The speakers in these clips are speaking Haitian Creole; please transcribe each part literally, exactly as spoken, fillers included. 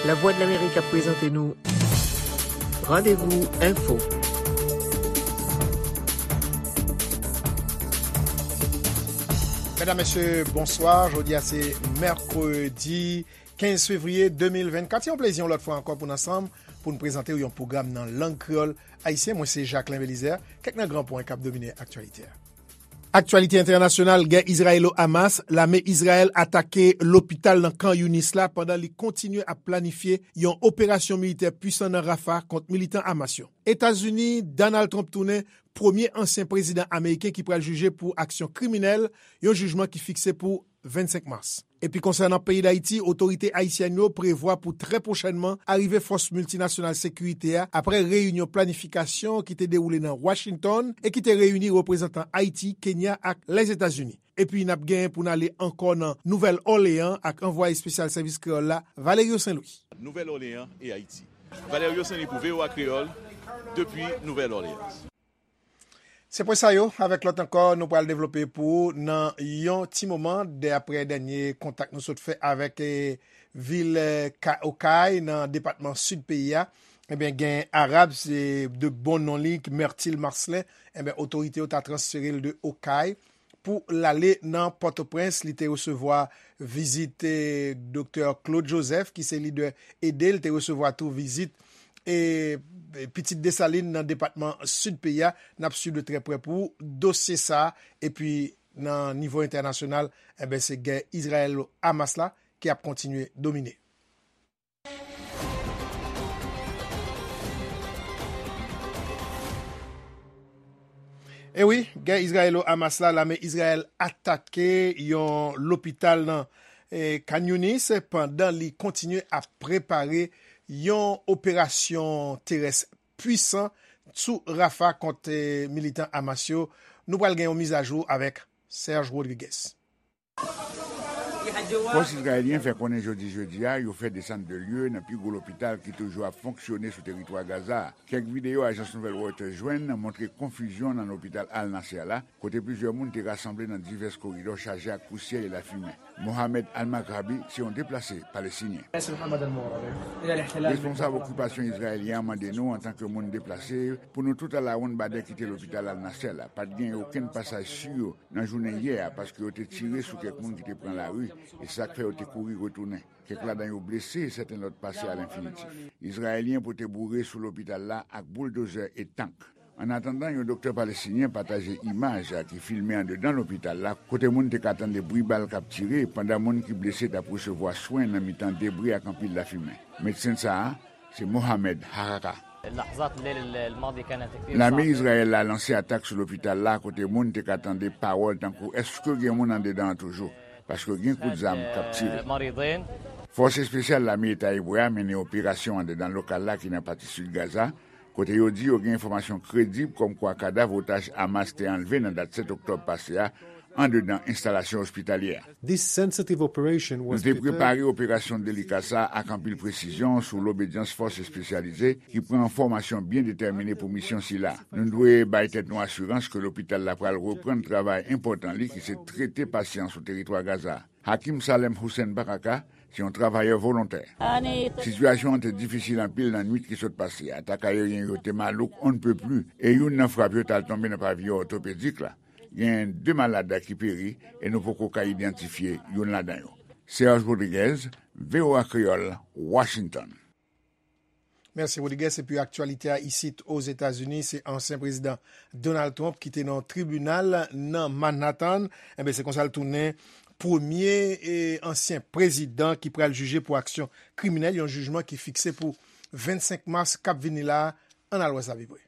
Lavwadlamerik ap prezante nou Randevou Enfo. Medam, mesye, bonswa. Jodi a se mèkredi kenz fevriye de mil vennkat. Se yon plezi yon lòt fwa ankò pou n ansanm, pou n prezante w yon pwogram nan lang kreyòl ayisyen. Mwen se Jacquelin Belizaire. Kèk nan gran pwen k ap domine aktyalite a. Aktyalite entènasyonal, gè Izrayelo-Hamas, lame Izrayèl atake lopital nan Khan Younis la pandan li kontinye ap planifye yon operasyon militè pwisan nan Rafah kont militan Hamas yo. Etazini, Donald Trump tounen premye ansyen prezidan ameriken ki pral jije pou aksyon kriminèl, yon jijman ki fikse pou vennsenk mas. Epi konsènan peyi Dayiti, otorite ayisyèn yo prevwa pou trè pwochènman arive fòs miltinasyonal sekirite a apre reyinyon planifikasyon ki te dewoule nan Washington e ki te reyini reprezantan Ayiti, Kenya ak Lèzetazini. Epi n ap genyen pou n ale ankò nan Nouvèl Òleyan ak anvwaye espesyal sèvis kreyòl la, Valerio Saint Louis. Nouvèl Òleyan e Ayiti. Valerio Saint Louis pou V O A Kreyòl, depi Nouvèl Òleyan. Se pwen sa yo, avèk lòt ankò, nou pral devlope pou ou nan yon ti moman, dè, apre dènye kontak nou sot fè avèk, eh, vil, eh, Ka-, Okay, nan depatman sid peyi a. Ebyen, gen Arab, se de bon non li, Myrtil Marcelin. Ebyen, otorite yo ta transfere l de Okay pou l ale nan Pòtoprens. Li te resevwa vizit, eh, Doktè Claude Joseph, ki se lidè ede. Li te resevwa tou vizit, eh, pitit Desalin nan depatman sid peyi a. N ap swiv de trè prè pou dosye sa a. Epi, nan nivo entènasyonal, enben, se gè Izrayèl-Hamas la ki ap kontinye domine. E wi, gè Izrayelo-Hamas la, lame Izrayèl atake yon lopital nan, eh, Khan Younis pandan li kontinye ap prepare yon operasyon terès pwisan sou Rafah kont, eh, militan Hamas yo. Nou pral gen yon mizajou avèk Serge Rodriguez. Fòs izrayelyen fè konnen jodi jedi a yo fè desann de lye nan pi gwo lopital ki toujou ap fonksyone sou teritwa Gaza a. Kèk videyo ajans nouvèl Reuters jwenn montre konfizyon nan lopital Al Nasser la, kote plizyè moun te rasanble nan divès koridò chaje ak pousyè e lafimen. Mohamed Al-Maghrabi se yon deplase palestinyen. Responsab okipasyon izrayelyen an mande nou, antanke moun deplase, pou nou tout al awoun badè kite lopital Al Nasser la. Pa t gen okenn pasaj si yo nan jounen yè a, paske yo te tire sou kèk moun ki te pran lari, e sa k fè yo te kouri retounen. Kèk ladan yo blese e sèten lòt pase alenfinitif. Izrayelyen pote boure sou lopital la ak bouldozè e tank. Annatandan, yon doktè palestinyen pataje imaj ki filme andedan lopital la, kote moun te ka tande bri bal k ap tire, pandan moun ki blese t ap resevwa swen nan mitan debri ak anpil lafimen. Medsen sa a, se Mohamed Haraka. Lame Izrayèl la lanse atak sou lopital la, kote moun te ka tande pawòl tankou, "Èske gen moun andedan an toujou?" Paske gen kout zam k ap tire. Fòs espesyal lame Eta Ebre a mennen operasyon andedan lokal la ki nan pati sid Gaza, kote yo di yo gen enfòmasyon kredib kòmkwa kadav otaj Hamas te anlve nan dat sèt oktòb pase a andedan enstalasyon ospitalyè a. Nou te prepare operasyon delika sa a ak anpil presizyon sou lobedyans fòs espesyalize ki pran fòmasyon byen detèmine pou misyon sila. Nou dwe bay tèt nou asirans ke lopital la pral reprann travay enpòtan li ki se trete pasyan sou teritwa Gaza. Hakim Salem Hussein Baraka se yon travayè volontè. Sitiyasyon an te difisil anpil nan nwit ki sot pase a. Atak ayeryen yo te malouk on ne peut plus, e youn nan frap yo t al tonbe nan paviyon òtopedik la. Gen de malad ki peri e nou poko ka idantifye youn ladan yo. Serge Rodriguez, V O A Kreyòl, Washington. Mèsi Rodriguez. Epi aktyalite a isit Ozetazini, se ansyen prezidan Donald Trump ki te nan yon tribinal nan Manhattan. Enben, se konsa l tounen premye e ansyen prezidan ki pral jije pou aksyon kriminèl, yon jijman ki fikse pou vennsenk mas k ap vini la a. Ann al wè sa pi pre.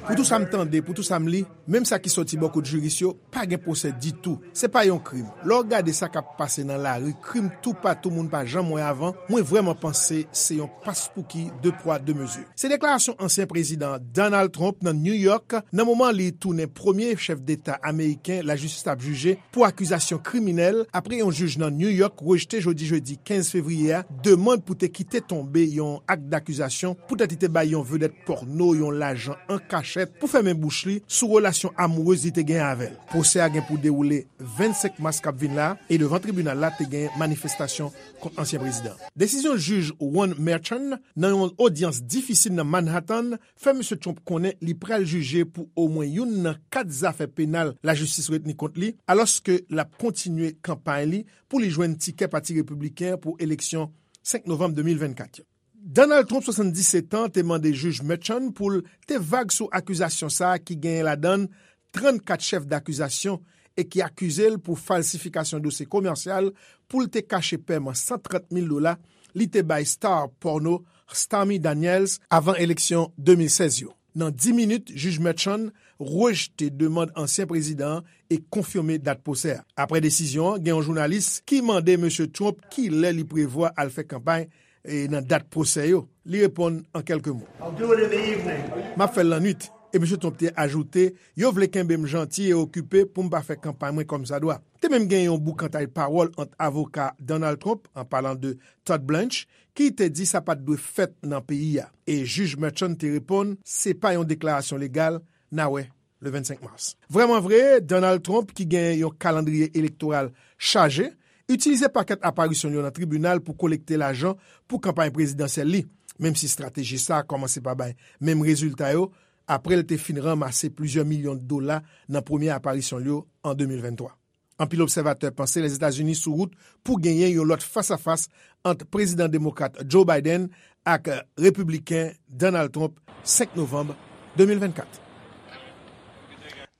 Pou tou sa m tande, pou tou sa m li, menm sa ki sòti bò kot jiris yo, pa gen pwosè ditou. Se pa yon krim. Lè w gade sa k ap pase nan lari, krim toupatou moun pa janm wè avan, mwen vrèman panse se yon paspouki de pwa de mezi. Se deklarasyon ansyen prezidan Donald Trump nan New York nan moman li tounen premye chèf deta ameriken lajistis ap jije pou akizasyon kriminèl apre yon jij nan New York rejte jodi jedi kenz fevriye a demann pou te kite tonbe yon ak dakizasyon poutèt li te bay yon vedèt pòno yon lajan an kachèt. manchèt pou fèmen bouch li sou relasyon amourez li te gen avè l. Pwosè a gen pou dewoule vennsenk mas k ap vin la, e devan tribinal la te gen manifestasyon kont ansyen prezidan. Desizyon jij Juan Merchan nan yon odyans difisil nan Manhattan fè Mesye Trump konnen li pral jije pou omwen youn nan kat zafè penal lajistis retni kont li, alòske l ap kontinye kanpay li pou li jwenn tikè Pati Repibliken pou eleksyon senk novanm de mil vennkat yo. Donald Trump, swasanndisèt an, te mande jij Merchan pou l te vag sou akizasyon sa a ki genyen ladan l trannkat chèf dakizasyon e ki akize l pou falsifikasyon dosye komèsyal pou l te kache pèman san trant mil dola li te bay star pòno Stormy Daniels avan eleksyon de mil sèz yo. Nan dis minit, jij Merchan rejte demann ansyen prezidan an e konfime dat pwosè a. Apre desizyon an, gen yon jounalis ki mande Mesye Trump kilè li prevwa al fè kanpay e nan dat pwosè yo. Li reponn an kèlke mo. I'll do it in the evening. M ap fè l lannwit. E Mesye Trump te ajoute, yo vle kenbe m janti e okipe pou m pa fè kanpay mwen kòmsadwa. Te menm gen yon boukantay pawòl ant avoka Donald Trump, an palan de Todd Blanche, ki te di sa pa t dwe fèt nan peyi a. E jij Merchan te reponn, se pa yon deklarasyon legal, n a wè le vennsenk mas. Vrèman vre, Donald Trump, ki gen yon kalandriye elektoral chaje, itilize pakèt aparisyon l yo nan tribinal pou kolekte lajan pou kanpay prezidansyèl li, menm si estrateji sa a kòmanse pa bay menm rezilta yo, apre l te fin ranmase plizyè milyon dola nan premye aparisyon l yo an de mil venntwa. Anpil obsèvatè panse Lèzetazini sou wout pou genyen yon lòt fasafas ant prezidan demokrat Joe Biden ak repibliken Donald Trump senk novanm de mil vennkat.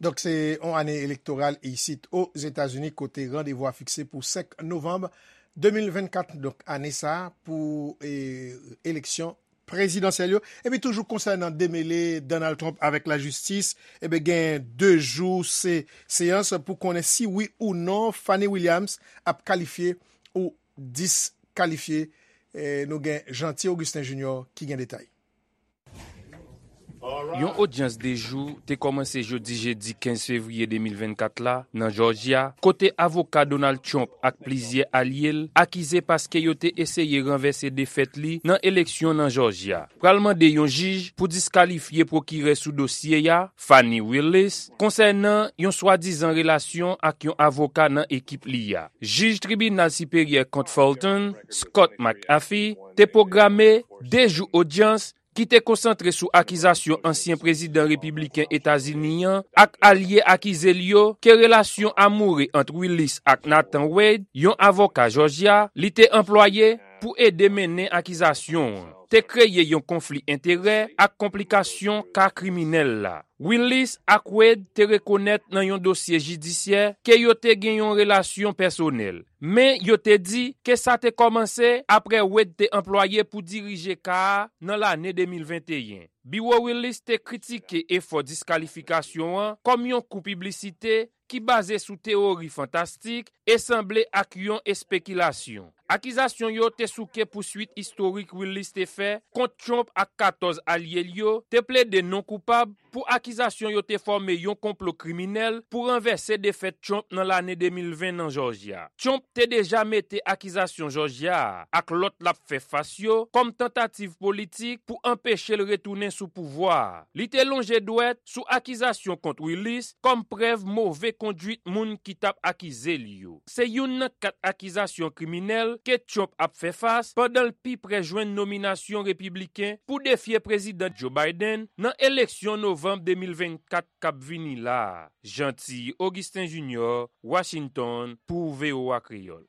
Donk, se yon ane elektoral isit Ozetazini kote randevou a fikse pou senk novanm de mil vennkat. Donk, ane sa a pou e, eleksyon prezidansyèl yo. Epi toujou konsènan demele Donald Trump avèk lajistis, ebyen gen de jou se seyans pou konnen si wi ou non Fani Williams ap kalifye ou diskalifye. E, nou gen Jeanty Augustin Junior ki gen detay. Yon odyans de jou te kòmanse jodi jedi kenz fevriye de mil vennkat la nan Jòjya, kote avoka Donald Trump ak plizyè alye l akize paske yo te eseye ranvèse defèt li nan eleksyon nan Jòjya. Pral mande yon jij pou diskalifye pwokirè sou dosye a, Fani Willis, konsènan yon swadizan relasyon ak yon avoka nan ekip li a. Jij Tribinal Siperyè kont Fulton, Scott McAfee, te pwograme de jou odyans ki te konsantre sou akizasyon ansyen prezidan repibliken Etazini an ak alye akize l yo ke relasyon amoure ant Willis ak Nathan Wade, yon avoka Jòjya, li te anplwaye pou ede mennen akizasyon an, te kreye yon konfli enterè ak konplikasyon ka kriminèl la. Willis ak Wade te rekonèt nan yon dosye jidisyè ke yo te gen yon relasyon pèsonèl, men yo te di ke sa te kòmanse apre Wade te anplwaye pou dirije ka a nan lane de mil venteyen. Biwo Willis te kritike efò diskalifikasyon an kòm yon kou piblisite ki baze sou teyori fantastik e sanble ak yon espekilasyon. Akizasyon yo te souke pouswit istorik Willis te fè kont Trump ak katòz alye l yo te plede non koupab pou akizasyon yo te fòme yon konplo kriminèl pou ranvèse defèt Trump nan lane de mil ven nan Jòjya. Trump te deja mete akizasyon Jòjya a ak lòt l ap fè fas yo kòm tantativ politik pou anpeche l retounen sou pouvwa a. Li te lonje dwèt sou akizasyon kont Willis kòm prèv move konduit moun ki t ap akize l yo. Se youn nan kat akizasyon kriminèl ke Trump ap fè fas pandan l pi pre jwenn nominasyon repibliken pou defye Prezidan Joe Biden nan eleksyon novanm de mil vennkat k ap vini la a. Jeanty Augustin Junior, Washington, pou V O A Kreyòl.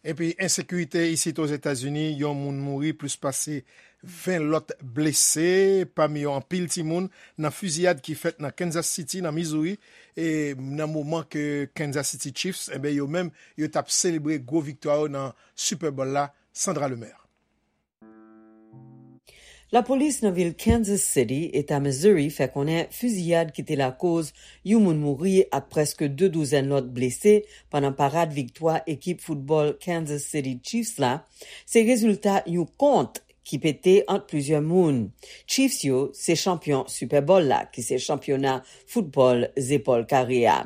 Epi ensekirite isit Ozetazini, yon moun mouri, plis pase ven lòt blese, pami yo anpil timoun, nan fiziyad ki fèt nan Kansas City, nan Missouri, e nan moman ke Kansas City Chiefs, enben, yo menm, yo t ap selebre gwo viktwa yo nan Super Bowl la. Sandra Lemaire. Lapolis nan vil Kansas City, eta Missouri, fè konnen fiziyad ki te lakoz yon moun mouri ak prèske de douzèn lòt blese pandan parad viktwa ekip foutbòl Kansas City Chiefs la, se rezilta yon kont ki pete ant plizyè moun. Chiefs yo se chanpyon Super Bowl la, ki se chanpyona foutbòl zepòl kare a.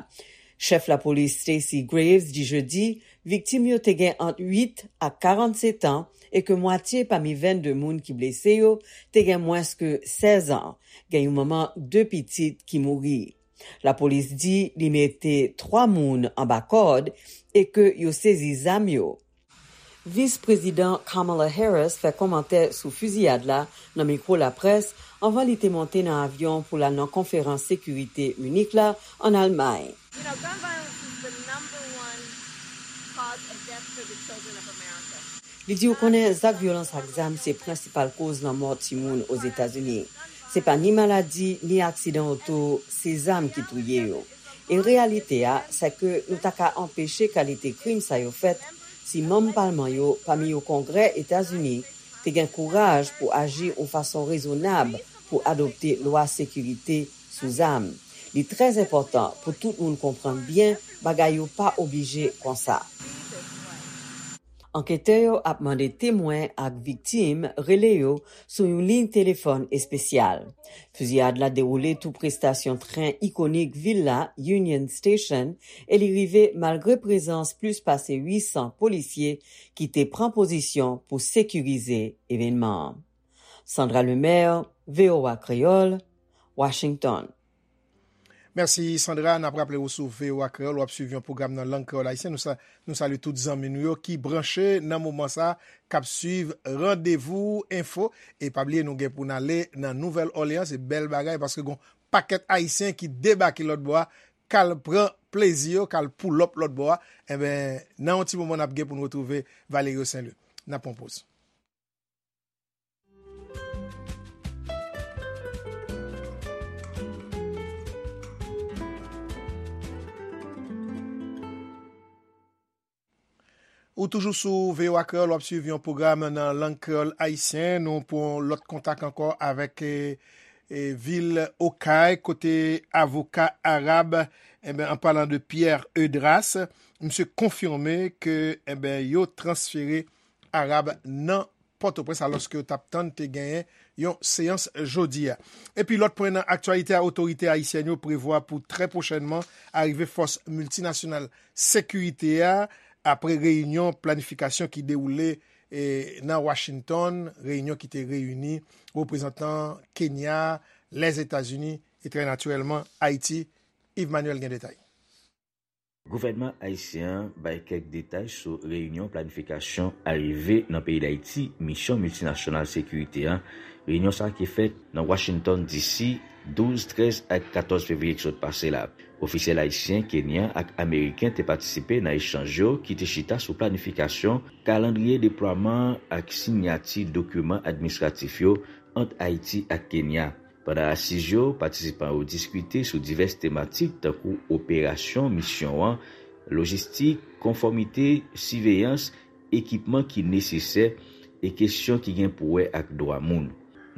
Chèf lapolis Stacey Graves di jedi viktim yo te gen ant uit ak karannsetan e ke mwatye pami vennde moun ki blese yo te gen mwens ke sèz an, gen yon manman de pitit ki mouri. Lapolis di li mete twa moun anba kòd e ke yo sezi zam yo. Vis Prezidan Kamala Harris fè kòmantè sou fiziyad la nan mikwo laprès anvan li te monte nan avyon pou l al nan konferans sekirite Minik la ann Almay. You know, gun violence is the number one cause of death for the children of America. Li di, ou konnen, zak vyolans ak zam se prensipal koz lanmò timoun Ozetazini. Se pa ni maladi, ni aksidan oto, se zam ki touye yo. E reyalite a, se ke nou ta ka anpeche kalite krim sa yo fèt si manm palman yo, pami yo Kongrè Etazini, te gen kouraj pou aji yon fason rezonab pou adopte lwa sekirite sou zam. Li trè enpòtan pou tout moun konprann byen bagay yo pa oblije konsa. Anketè yo ap mande temwen ak viktim rele yo sou yon liy telefòn espesyal. Fiziyad la dewoule toupre estasyon tren ikonik vil la, Union Station, e li rive malgre prezans plis pase uit san polisye ki te pran pozisyon pou sekirize evènman an. Sandra Lemaire, V O A Kreyòl, Washington. Mèsi Sandra, n ap raple w sou V O A Kreyòl, w ap swiv yon pwogram nan lang kreyòl ayisyen. Nou sa, nou salye tout zanmi nou yo ki branche nan moman sa, k ap swiv Randevou Enfo. E pa bliye nou gen pou n ale nan Nouvèl Òleyan, se bèl bagay paske gon pakèt ayisyen ki debake lòt bò a, k al pran plezi yo, k al pull up lòt bò a. Enben, nan yon ti moman n ap gen pou n retwouve Valerio Saint Louis. N ap pran poz. Ou toujou sou V O A Kreyòl, w ap swiv yon pwogram nan lang kreyòl ayisyen. Nou pran lòt kontak ankò avèk e, e, vil Okay, kote avoka Arab, enben, an palan de Pierre Eudras, misye konfime ke, enben, yo transfere Arab nan Pòtoprens, alòske yo t ap tann te genyen yon seyans jodi a. Epi lòt pwen nan aktyalite a, otorite ayisyèn yo prevwa pou trè pwochènman arive fòs miltinasyonal sekirite a apre reyinyon planifikasyon ki dewoule e, nan Washington, reyinyon ki te reyini reprezantan Kenya, Lèzetazini e trè natirèlman Ayiti. Yves Manuel gen detay. Gouvènman ayisyen an bay kèk detay sou reyinyon planifikasyon arive nan peyi Dayiti misyon miltinasyonal sekirite a. Reyinyon sa a ki fèt nan Washington D C douz, trèz ak katòz fevriye ki sot pase la. Ofisyèl ayisyen, kenyan ak ameriken te patisipe nan echanj yo ki te chita sou planifikasyon, kalandriye deplwaman ak siyati dokiman administratif yo ant Ayiti ak Kenya. Pandan asiz yo, patisipan yo diskite sou divès tematik tankou operasyon misyon an, lojistik, konfòmite, siveyans, ekipman ki nesesè e kesyon ki gen pou wè ak dwa moun.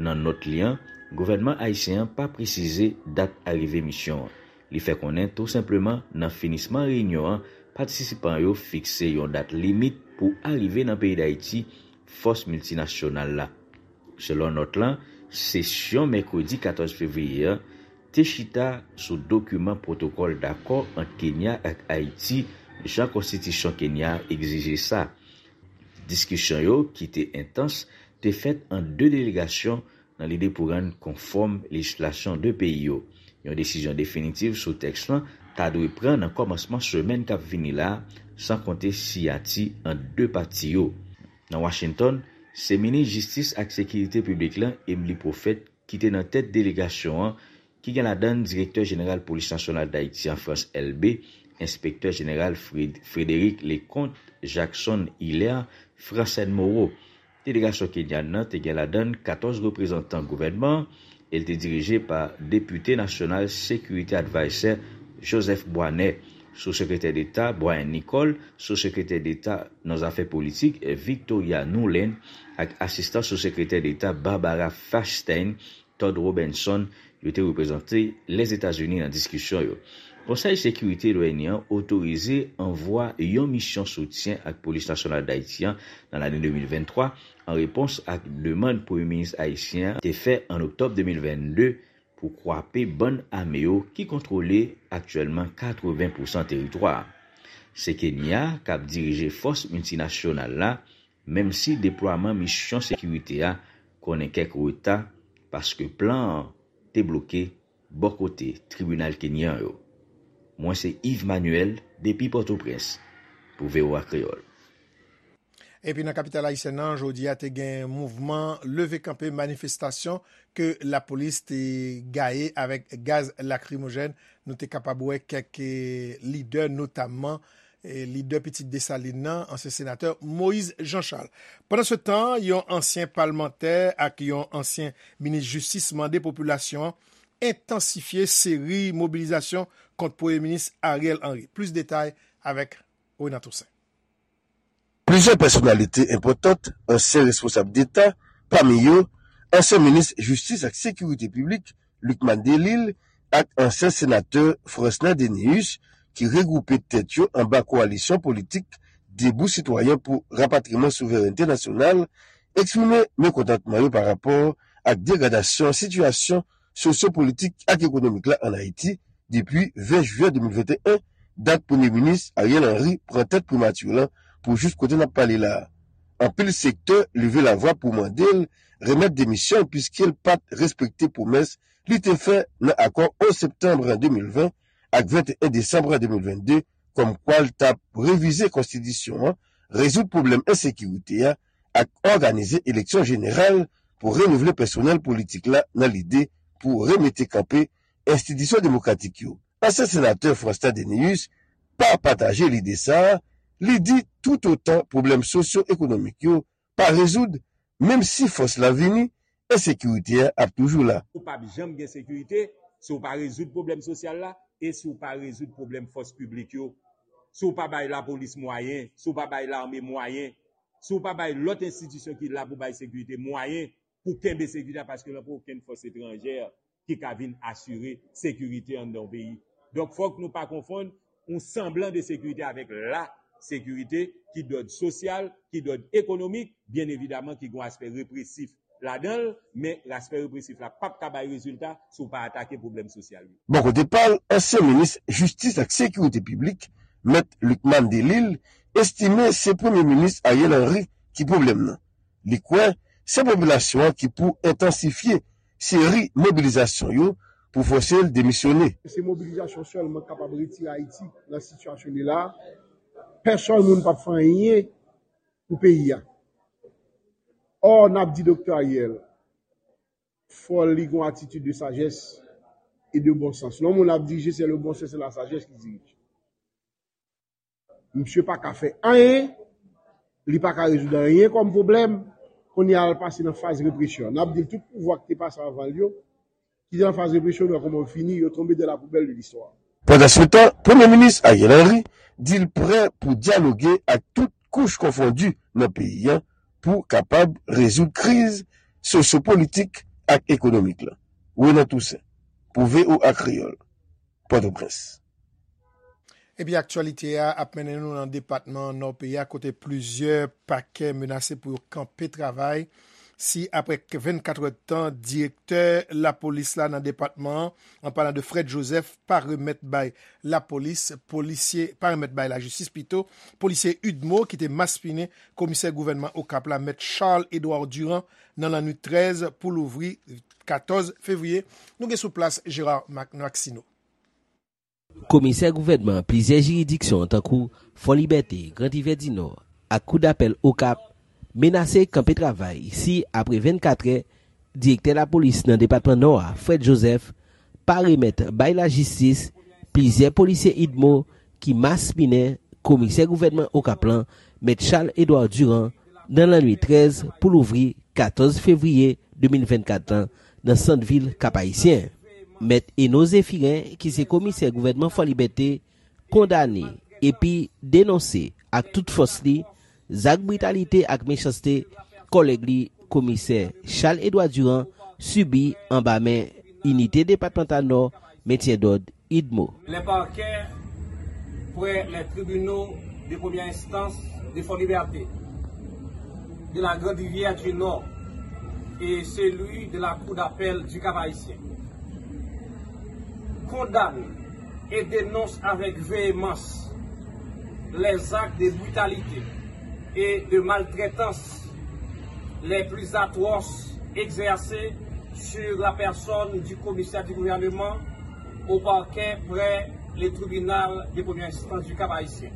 Nan nòt li an, gouvènman ayisyen an pa presize dat arive misyon an. Li fè konnen tou senpleman nan finisman reyinyon an, patisipan yo fikse yon dat limit pou arive nan peyi Dayiti fòs miltinasyonal la. Selon nòt lan, sesyon mèkredi katòz fevriye an te chita sou dokiman pwotokòl dakò ant Kenya ak Ayiti, jan konstitisyon Kenya a egzije sa. Diskisyon yo, ki te entans, te fèt ant de delegasyon nan lide pou rann konfòm lejislasyon de peyi yo. Yon desizyon definitif sou tèks lan ta dwe pran nan kòmansman semèn k ap vini la a, san konte siyati ant de pati yo. Nan Washington, se minis jistis ak sekirite piblik lan, Emmelie Prophète, ki te nan tèt delegasyon an, ki gen ladan l direktè jeneral Polis Nasyonal Dayiti an, Frantz Elbé, enspektè jeneral Fred- Frédéric Leconte, Jackson Hilaire, Francène Moreau. Delegasyon kenyan nan te gen ladan l katòz reprezantan gouvènman an e l te dirije pa Depite Nasyonal Security Adviser Joseph Boisnet, Sou Sekretè Deta Brian Nicholl, Sou Sekretè Deta nan Zafè Politik Victoria Nuland ak Asistan Sou Sekretè Deta Barbara Feinstein, Todd Robinson, yo te reprezante Lèzetazini nan diskisyon yo. Konsèy Sekirite de l'O N U an otorize anvwa yon misyon soutyen ak Polis Nasyonal Dayiti an nan lane de mil venntwa, an repons ak demann Premye Minis ayisyen an te fè an oktòb de mil vennde pou kwape bann ame yo ki kontwole aktyèlman katreven pousan teritwa a. Se Kenya k ap dirije fòs miltinasyonal la, menm si deplwaman misyon sekirite a konnen kèk reta paske plan an te bloke bò kote tribinal kenyan yo. Mwen se Yves Manuel depi Pòtoprens pou V O A Kreyòl. Epi nan kapital ayisyèn nan, jodi a te gen mouvman leve kanpe, manifestasyon ke lapolis te gaye avèk gaz lakrimojèn. Nou te kapab wè kèk lidè, notamman lidè Pitit Desalin nan, ansyen senatè Moïse Jean Charles. Pandan se tan, yon ansyen palmantè ak yon ansyen minis jistis mande popilasyon an entansifye seri mobilizasyon kont Premye Minis Ariel Henry. Plis detay avèk Renan Toussaint. Plizyè pèsonalite enpòtan, ansyen responsab deta, pami yo, ansyen minis jistis ak sekirite piblik, Lucmane Delille, ak ansyen senatè Fransner Dénéus, ki regwoupe tèt yo anba kowalisyon politik Debout Sitwayen pou Rapatriman Souverènte Nasyonal, eksprime mekontantman yo pa rapò ak degradasyon sitiyasyon sosyo-politik ak ekonomik la ann Ayiti depi ven jiyè de mil venteyen, dat Premye Minis Ariel Henry pran tèt primati lan pou jis kote n ap pale la a. Anpil sektè leve lavwa pou mande l remèt demisyon l piske l pa t respekte pwomès li te fè nan akò onz septanm de mil ven ak venteyen desanm de mil vennde, kòmkwa l t ap revize konstitisyon an, rezoud pwoblèm ensekirite a ak òganize eleksyon jeneral pou renouvle pèsonèl politik la nan lide pou remete kanpe enstitisyon demokratik yo. Ansyen senatè Fransner Dénéus pa pataje lide sa a, li di toutotan pwoblèm sosyo-ekonomik yo pa rezoud, menm si fòs la vini, ensekirite a ap toujou la. Ou p ap janm gen sekirite si w pa rezoud pwoblèm sosyal la e si w pa rezoud pwoblèm fòs piblik yo. Si w pa bay lapolis mwayen, si w pa bay lame mwayen, si w pa bay lòt enstitisyon ki la pou bay sekirite mwayen pou kenbe sekirite a, paske nan pa okenn fòs etranjè ki ka vin asire sekirite anndan yon peyi. Donk, fòk nou pa konfonn yon sanblan de sekirite avèk la sekirite ki dòd sosyal, ki dòd ekonomik, byen evidaman ki gen yon aspè represif ladan l, men aspè represif la p ap ka bay rezilta si w pa atake pwoblèm sosyal yo. Bò kote pa l, ansyen minis jistis ak sekirite piblik, Mèt Lucmane Delille, estime se Premye Minis Ariel Henry ki pwoblèm nan. Li kwè se popilasyon an ki pou entansifye seri mobilizasyon yo pou fòse l demisyone. Se mobilizasyon sèlman k kapab retire Ayiti nan sitiyasyon li la a. Pèsòn moun p ap fè anyen pou peyi a. Ò, n ap di Doktè Ariel, fò li gen yon atitid de sajès e de bon sans. Lè yon moun ap dirije, se le bon sens et la sagesse qui dirige. Misye pa ka fè anyen, li pa ka rezoud anyen kòm pwoblèm, kounye a l pase nan faz represyon. N ap di l tout pouvwa ki te pase anvan l yo, ki te nan faz represyon, nou wè kòman yo fini, yo tonbe dans la poubelle de l'histoire. Pandansetan, Premye Minis Ariel Henry di l prè pou dyaloge ak tout kouch konfondi nan peyi a pou kapab rezoud kriz sosyo-politik ak ekonomik la. Renan Toussaint, pou V O A Kreyòl, Pòtoprens. Epi aktyalite a ap mennen nou nan depatman Nò peyi a kote plizyè pakè menase pou yo kanpe travay si apre vennkat èdtan direktè lapolis la nan depatman an, an palan de Fred Joseph, pa remèt bay lapolis, polisye, pa remèt bay lajistis pito, polisye UDMO ki te maspinen komisè gouvènman Okap la, mèt Charles Edouard Durand, nan lannwit trèz pou louvri katòz fevriye. Nou gen sou plas Gérard Mac- Maxineau. Komisè gouvènman plizyè jiridiksyon tankou Fò Libète, Gran Rivè di Nò ak Kou Dapèl Okap menase kanpe travay si apre vennkatrè, direktè lapolis nan depatman Nò a, Fred Joseph, pa remèt bay lajistis plizyè polisye UDMO ki maspinen komisè gouvènman Okap lan, mèt Charles Edouard Durand, nan lannwit trèz pou louvri katòz fevriye de mil vennkat lan nan sant vil Kap-Ayisyen. Mèt Eno Zéphirin, ki se komisè gouvènman Fò Libète, kondane epi denonse ak tout fòs li zak britalite ak mechanste kòlèg li, komisè Charles Edouard Durand, sibi anba men Inite Depatmantal Nò Mentyen Dòd, UDMO. Les parquets près les tribunaux de première instance de Fort-Liberté, de la Grande Rivière du Nord et celui de la Cour d'appel du Cap-Haïtien Condamne et dénonce avec véhémence les actes de brutalité et de maltraitance les plus atroces exercés sur la personne du commissaire du gouvernement au parquet près le tribunal de première instance du Cap-Haïtien,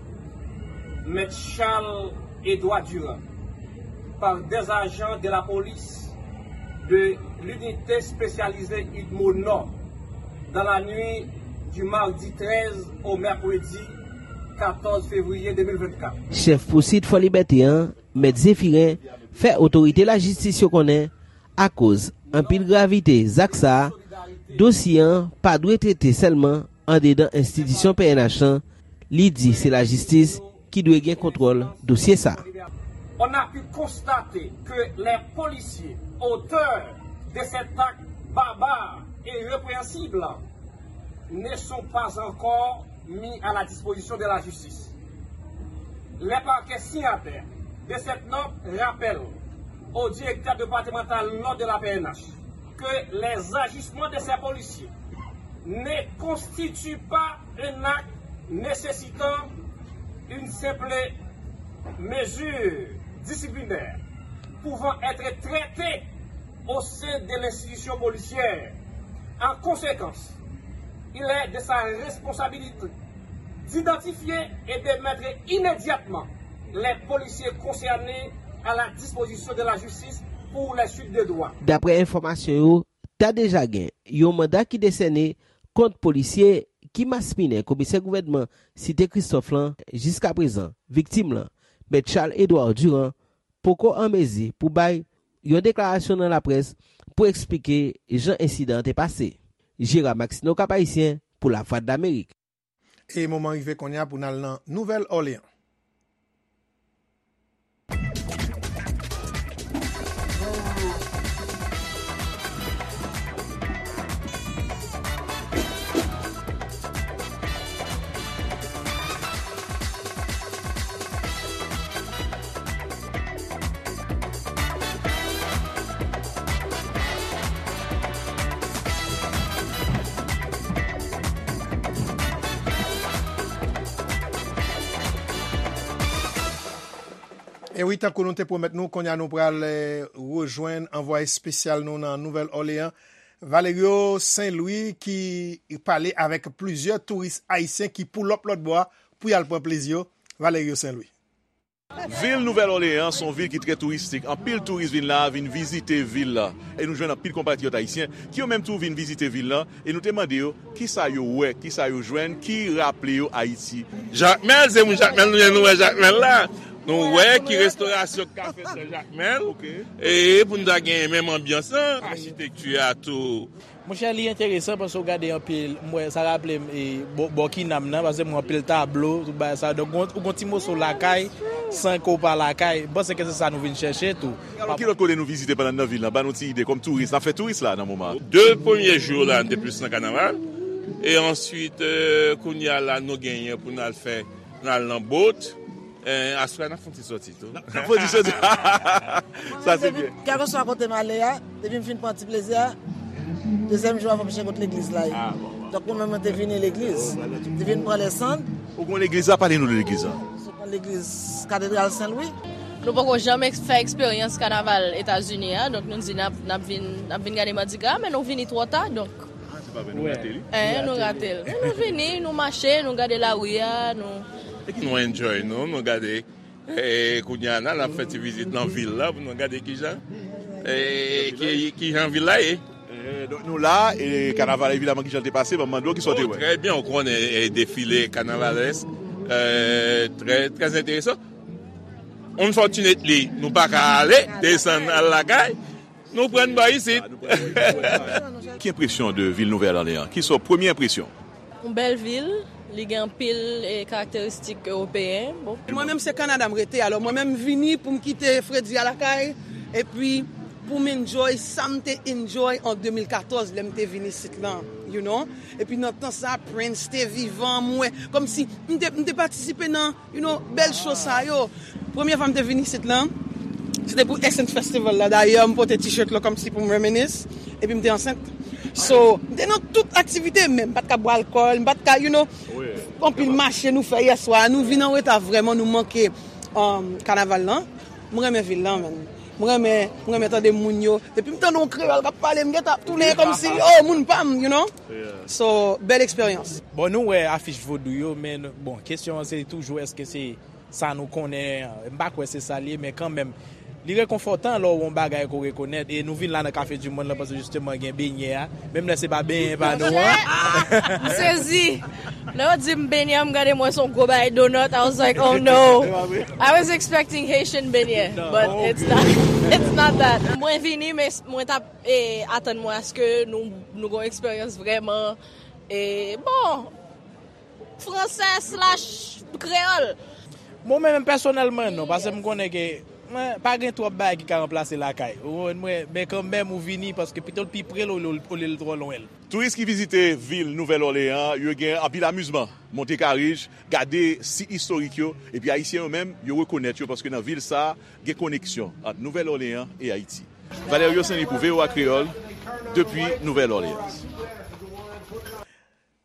Maître Charles Édouard Durand, par des agents de la police de l'unité spécialisée Udmo Nord dans la nuit du mardi treize au mercredi quatorze février deux mille vingt-quatre. Chèf pousuit Fò Libète an, Mèt Zéphirin, fè otorite lajistis yo konnen, akoz anpil gravite zak sa a, dosye an pa dwe trete sèlman andedan enstitisyon P N H lan, li di se lajistis ki dwe gen kontwòl dosye sa a. On a pu constater que les policiers auteurs de cet acte barbare et répréhensible ne sont pas encore mis à la disposition de la justice. Les parquets signataires de cette note rappellent au directeur départemental nord de la P N H que les agissements de ces policiers ne constituent pas un acte nécessitant une simple mesure disciplinaire pouvant être traitée au sein de l'institution policière. En conséquence, il est de sa responsabilité d'identifier et de mettre immédiatement les policiers concernés à la disposition de la justice pour les suites de droit. Daprè enfòmasyon yo, ta deja gen yon manda ki desène kont polisye ki maspinen komisè gouvènman Site Kristòf lan. Jiskaprezan, viktim lan, Mèt Charles Edouard Durand, poko an mezi pou bay yon deklarasyon nan laprès pou eksplike jan ensidan an te pase. Gérard Maxineau, Cap Haïtien, pou Lavwadlamerik. E moman rive kounye a pou n al nan Nouvèl Òleyan. E wi, tankou nou te pwomèt nou, kounye a nou pral, eh, rejwenn anvwaye espesyal nou nan Nouvèl Òleyan, Valerio Saint Louis, ki pale avèk plizyè touris ayisyen ki pull up lòt bò a pou y al pran plezi yo. Valerio Saint Louis. Vil Nouvèl Òleyan se yon vil ki trè touristik. Anpil touris vin la, vin vizite vil la. E nou jwenn anpil konpatriyòt ayisyen ki yo menm tou vin vizite vil la. E nou te mande yo kisa yo wè, kisa yo jwenn, ki raple yo Ayiti. Jakmèl, se moun Jakmèl nou ye, nou wè Jakmèl la. Nou wè ki restorasyon k ka fèt nan Jakmèl. E pou nou ta gen menm anbyans lan, achitekti a tou. Monchè, li enteresan paske w gade anpil, m wè, sa raple m, e, bò, bò Kinam nan, paske m wè anpil tablo, tout bagay sa. Donk, ou gon, ou gon ti moso lakay, san ke w pa lakay. M panse ke se sa nou vin chèche tou. Alò, ki lòt kote nou vizite pandan n nan vil lan? Ban nou ti ide, kòm touris, n ap fè touris la nan moman an. De premye jou la, n te plis nan kanaval. E answit, eh, kounye a la, nou genyen pou n al fè, n al nan bot. Eh, aswè a, n ap fè yon ti sòti tou. N ap fè yon ti sòti. Sa se byen. Kèlkeswa kote m ale a, depi m fin pran ti plezi a, dezyèm jou a, fò m chèche kot legliz la ye. Ah, bon, bon. Donk, mwen menm, mwen te vini legliz. Te vin pran lèsann. Ou konn legliz la? Pale nou de legliz la. Se yon legliz Katedral Sen Lwi. Nou poko janm eks-, fè eksperyans kanaval Etazini a, donk nou di n ap, n ap vin, n ap vin gade Madigra, men nou vini twò ta, donk. Ah, se pa vre, nou rate li. Eh, nou rate l. Men nou vini, nou mache, nou gade lari a, nou. Nou enjoy nou, nou gade. E kounye a la, n ap fè ti vizit nan vil la pou nou gade kijan, e, ki, kijan vil la ye. Eh, donk nou la, e kanaval evidaman kijan l te pase, ban m mande w kisa w te wè. Oh, trè byen, ou konnen, e, defile kanavalèsk, eh, trè, trè enteresan. Unfortunately, nou pa ka ale, desann al lakay, nou pran bò isit. Ki enpresyon de vil Nouvèl Òleyan? Ki sa w, premye enpresyon? Yon bèl vil, li gen anpil, e, karakteristik ewopeyen. Bon. Mwen menm se Kanada m rete, alò mwen menm m vini pou m kite fredi a lakay, epi pou m enjoy sa m te enjoy an de mil katòz lè m te vin isit lan, you know. Epi nan tan sa, Prince te vivan, m wè, kòmsi m te, m te patisipe nan, you know, bèl cho sa yo. Premye fwa m te vin isit lan, se te pou Essence Festival la. Dayè, m pote t-shirt lan kòmsi pou m reminisce. Epi m te ansent. So, m te nan tout aktivite, men m pa t ka bwè alkòl, m pa t ka, you know, anpil mache nou fè yèswa, nou vin an reta vrèman, nou manke um, kanaval lan. M renmen vil lan, man. M renmen, m renmen tande moun yo. Depi m tande yon kreyòl k ap pale, m gentan ap tounen kòmsi, oh, moun pa m, you know? So, bèl eksperyans. Bon, nou wè afich vodou yo, men bon, kesyon an se toujou èske se sa nou konnen, m pa kwè se sa l ye, men kanmenm, li rekonfòtan lè w wè yon bagay ke w rekonèt, e nou vin la nan Café du Monde lan, paske jisteman gen benyè a, menm lè se pa benyen pa nou an. M sezi. Lè yo di m benyè, m gade m wè se yon gwo bagay donut, I was like, oh no. I was expecting Haitian benyè, but it's not, it's not that. Mwen vini, men mwen t ap eh, atann mwen aske nou, nou gen yon eksperyans vrèman, eh, bon, fransè slash kreyòl. Mwen menm pèsonèlman non, paske m konnen ke mwen, pa gen twòp bagay ki ka ranplase lakay. Ou konprann mwen? Men kanmenm ou vini paske pito l pi pre l olye olye l twò lwen l. Touris ki vizite vil Nouvèl Òleyan an, yo gen anpil amizman, monte karij, gade sit istorik yo, epi Ayisyen yo menm, yo rekonèt yo paske nan vil sa a, gen koneksyon ant Nouvèl Òleyan e Ayiti. Valerio Saint-Louis pou V O A Kreyòl, depi Nouvèl Òleans.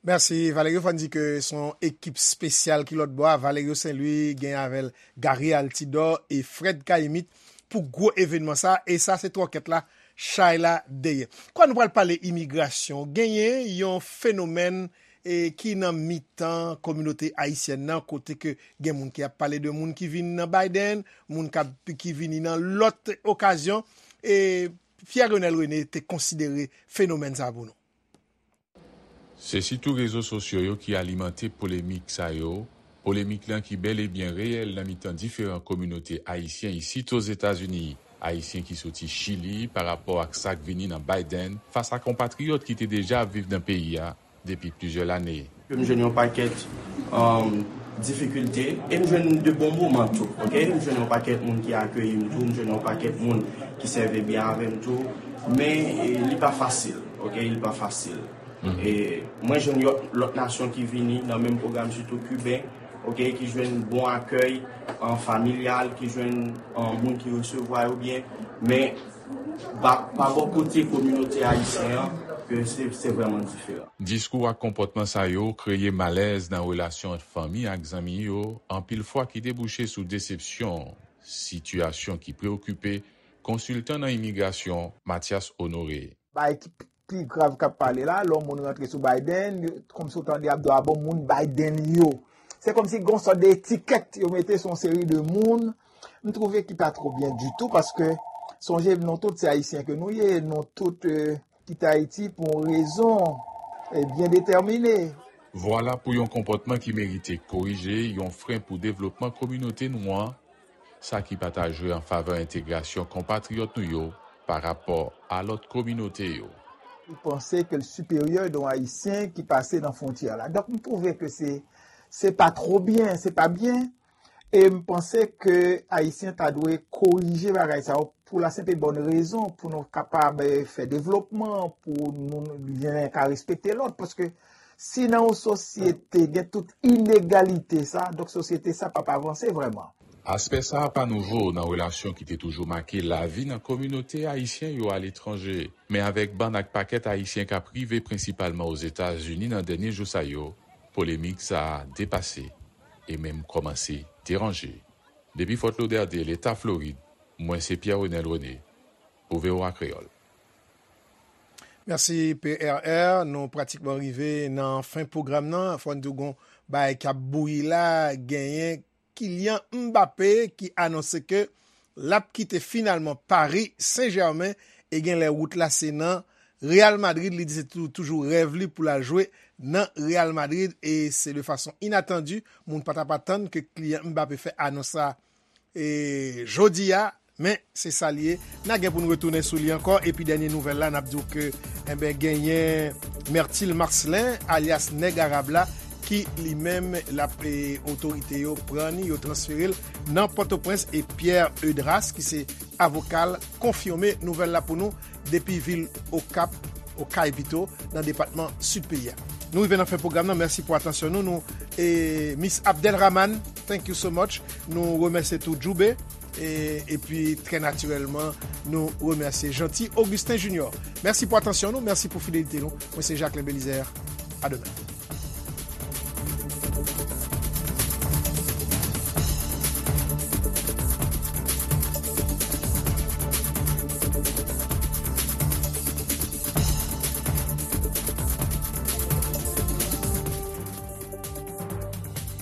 Mèsi Valerio. Fò n di ke se yon ekip espesyal ki lòt bò a. Valerio Saint-Louis gen avè l Gary Altidor e Fred Caïmite pou gwo evènman sa. E sa se twòkèt la, chay la dèyè. Kwa nou pral pale imigrasyon. Genyen yon fenomèn e ki nan mitan kominote ayisyèn nan, kote ke gen moun ki ap pale de moun ki vin nan Biden, moun k ap, ki vini nan lòt okazyon, e Pierre Renel René te konsidere fenomèn sa pou nou. Se sitou rezo sosyo yo ki alimante polemik sa yo, polemik lan ki bèl e byen reyèl nan mitan diferan kominote ayisyen isit Ozetazini, Ayisyen ki soti Chili pa rapò ak sa k vini nan Biden, fas a konpatriyòt ki te deja ap viv nan peyi a, depi plizyè lane. M jwenn yon pakèt difikilte e m jwenn de bon moman tou, oke? M jwenn yon pakèt moun ki akeyi m tou, m jwenn yon pakèt moun ki sèvi byen avè m tou, men li pa fasil, oke? Li pa fasil. E mwen jwenn lòt nasyon ki vini nan menm pwogram, sitou Kiben, oke, ki jwenn bon akèy familyal, ki jwenn moun ki resevwa yo byen, men pa bò kote kominote ayisyen an, ke se vrèman diferan. Diskou ak konpòtman sa yo kreye malèz nan relasyon ant fanmi ak zanmi yo, anpil fwa ki debouche sou desepsyon, sitiyasyon ki preokipe konsiltan nan imigrasyon Mathias Honoré. Bagay ki pi grav k ap pale la, lè yon moun rantre sou Biden, kòmsi w tande y ap di w a bon moun Biden yo. Se kòmsi gen yon sòt de etikèt yo mete sou yon seri de moun. M twouve ki pa twò byen ditou paske sonje nou tout se ayisyen ke nou ye, nou tout kite Ayiti pou yon rezon byen detèmine. Vwala pou yon konpòtman ki merite korije, yon fren pou devlopman kominote nou an, sa ki pa ta jwe an favè entegrasyon konpatriyòt nou yo pa rapò a lòt kominote yo. Li panse ke l siperyè de yon Ayisyen ki pase nan fwontyè la. Donk, m twouve ke se, se pa twò byen, se pa byen. E m panse ke Ayisyen ta dwe korije bagay sa yo pou la senp e bòn rezon, pou nou kapab fè devlopman, pou nou, len ka respekte lòt. Paske si nan yon sosyete gen tout inegalite sa, donk sosyete sa p ap avanse vrèman. Aspè sa a pa nouvo nan relasyon ki te toujou make lavi nan kominote ayisyen yo aletranje, men avèk bann ak pakèt Ayisyen k ap rive prensipalman Ozetazini nan dènye jou sa yo, polemik sa a depase e menm kòmanse deranje. Depi Fort Lauderdale, Eta Florid, mwen se Pierre Renel René pou V O A Kreyòl. Mèsi P R R. Nou pratikman rive nan fen pwogram nan. Fò n di w gen yon bagay k ap bouyi la, genyen Kylian Mbappé ki anonse ke l ap kite finalman Paris Saint-Germain e genlè wout la se nan Real Madrid. Li di se tou, toujou rèv li pou l al jwe nan Real Madrid e se de fason inatandi. Moun pa t ap atann ke Kylian Mbappé fè anons sa e jodi a. Men se sa l ye. N a gen pou n retounen sou li ankò. Epi dènye nouvèl la, n ap di w ke, enben, genyen Myrtil Marcelin, alyas Nèg Arab la, ki li menm, l ap, e, otorite yo pran ni, yo transfere l nan Pòtoprens. E Pierre Eudras, ki se avoka l, konfime nouvèl la pou nou depi vil Okap, Okay pito, nan depatman Sid peyi a. Nou rive nan fen pwogram nan. Mèsi pou atansyon nou. Nou, e, Miss Abdelrahman, thank you so much. Nou remèsye tou Djoube. E, epi, trè natirèlman, nou remèsye Jeanty Augustin Junior. Mèsi pou atansyon nou, mèsi pou fidelite nou. Mwen se Jacquelin Belizaire. A demen.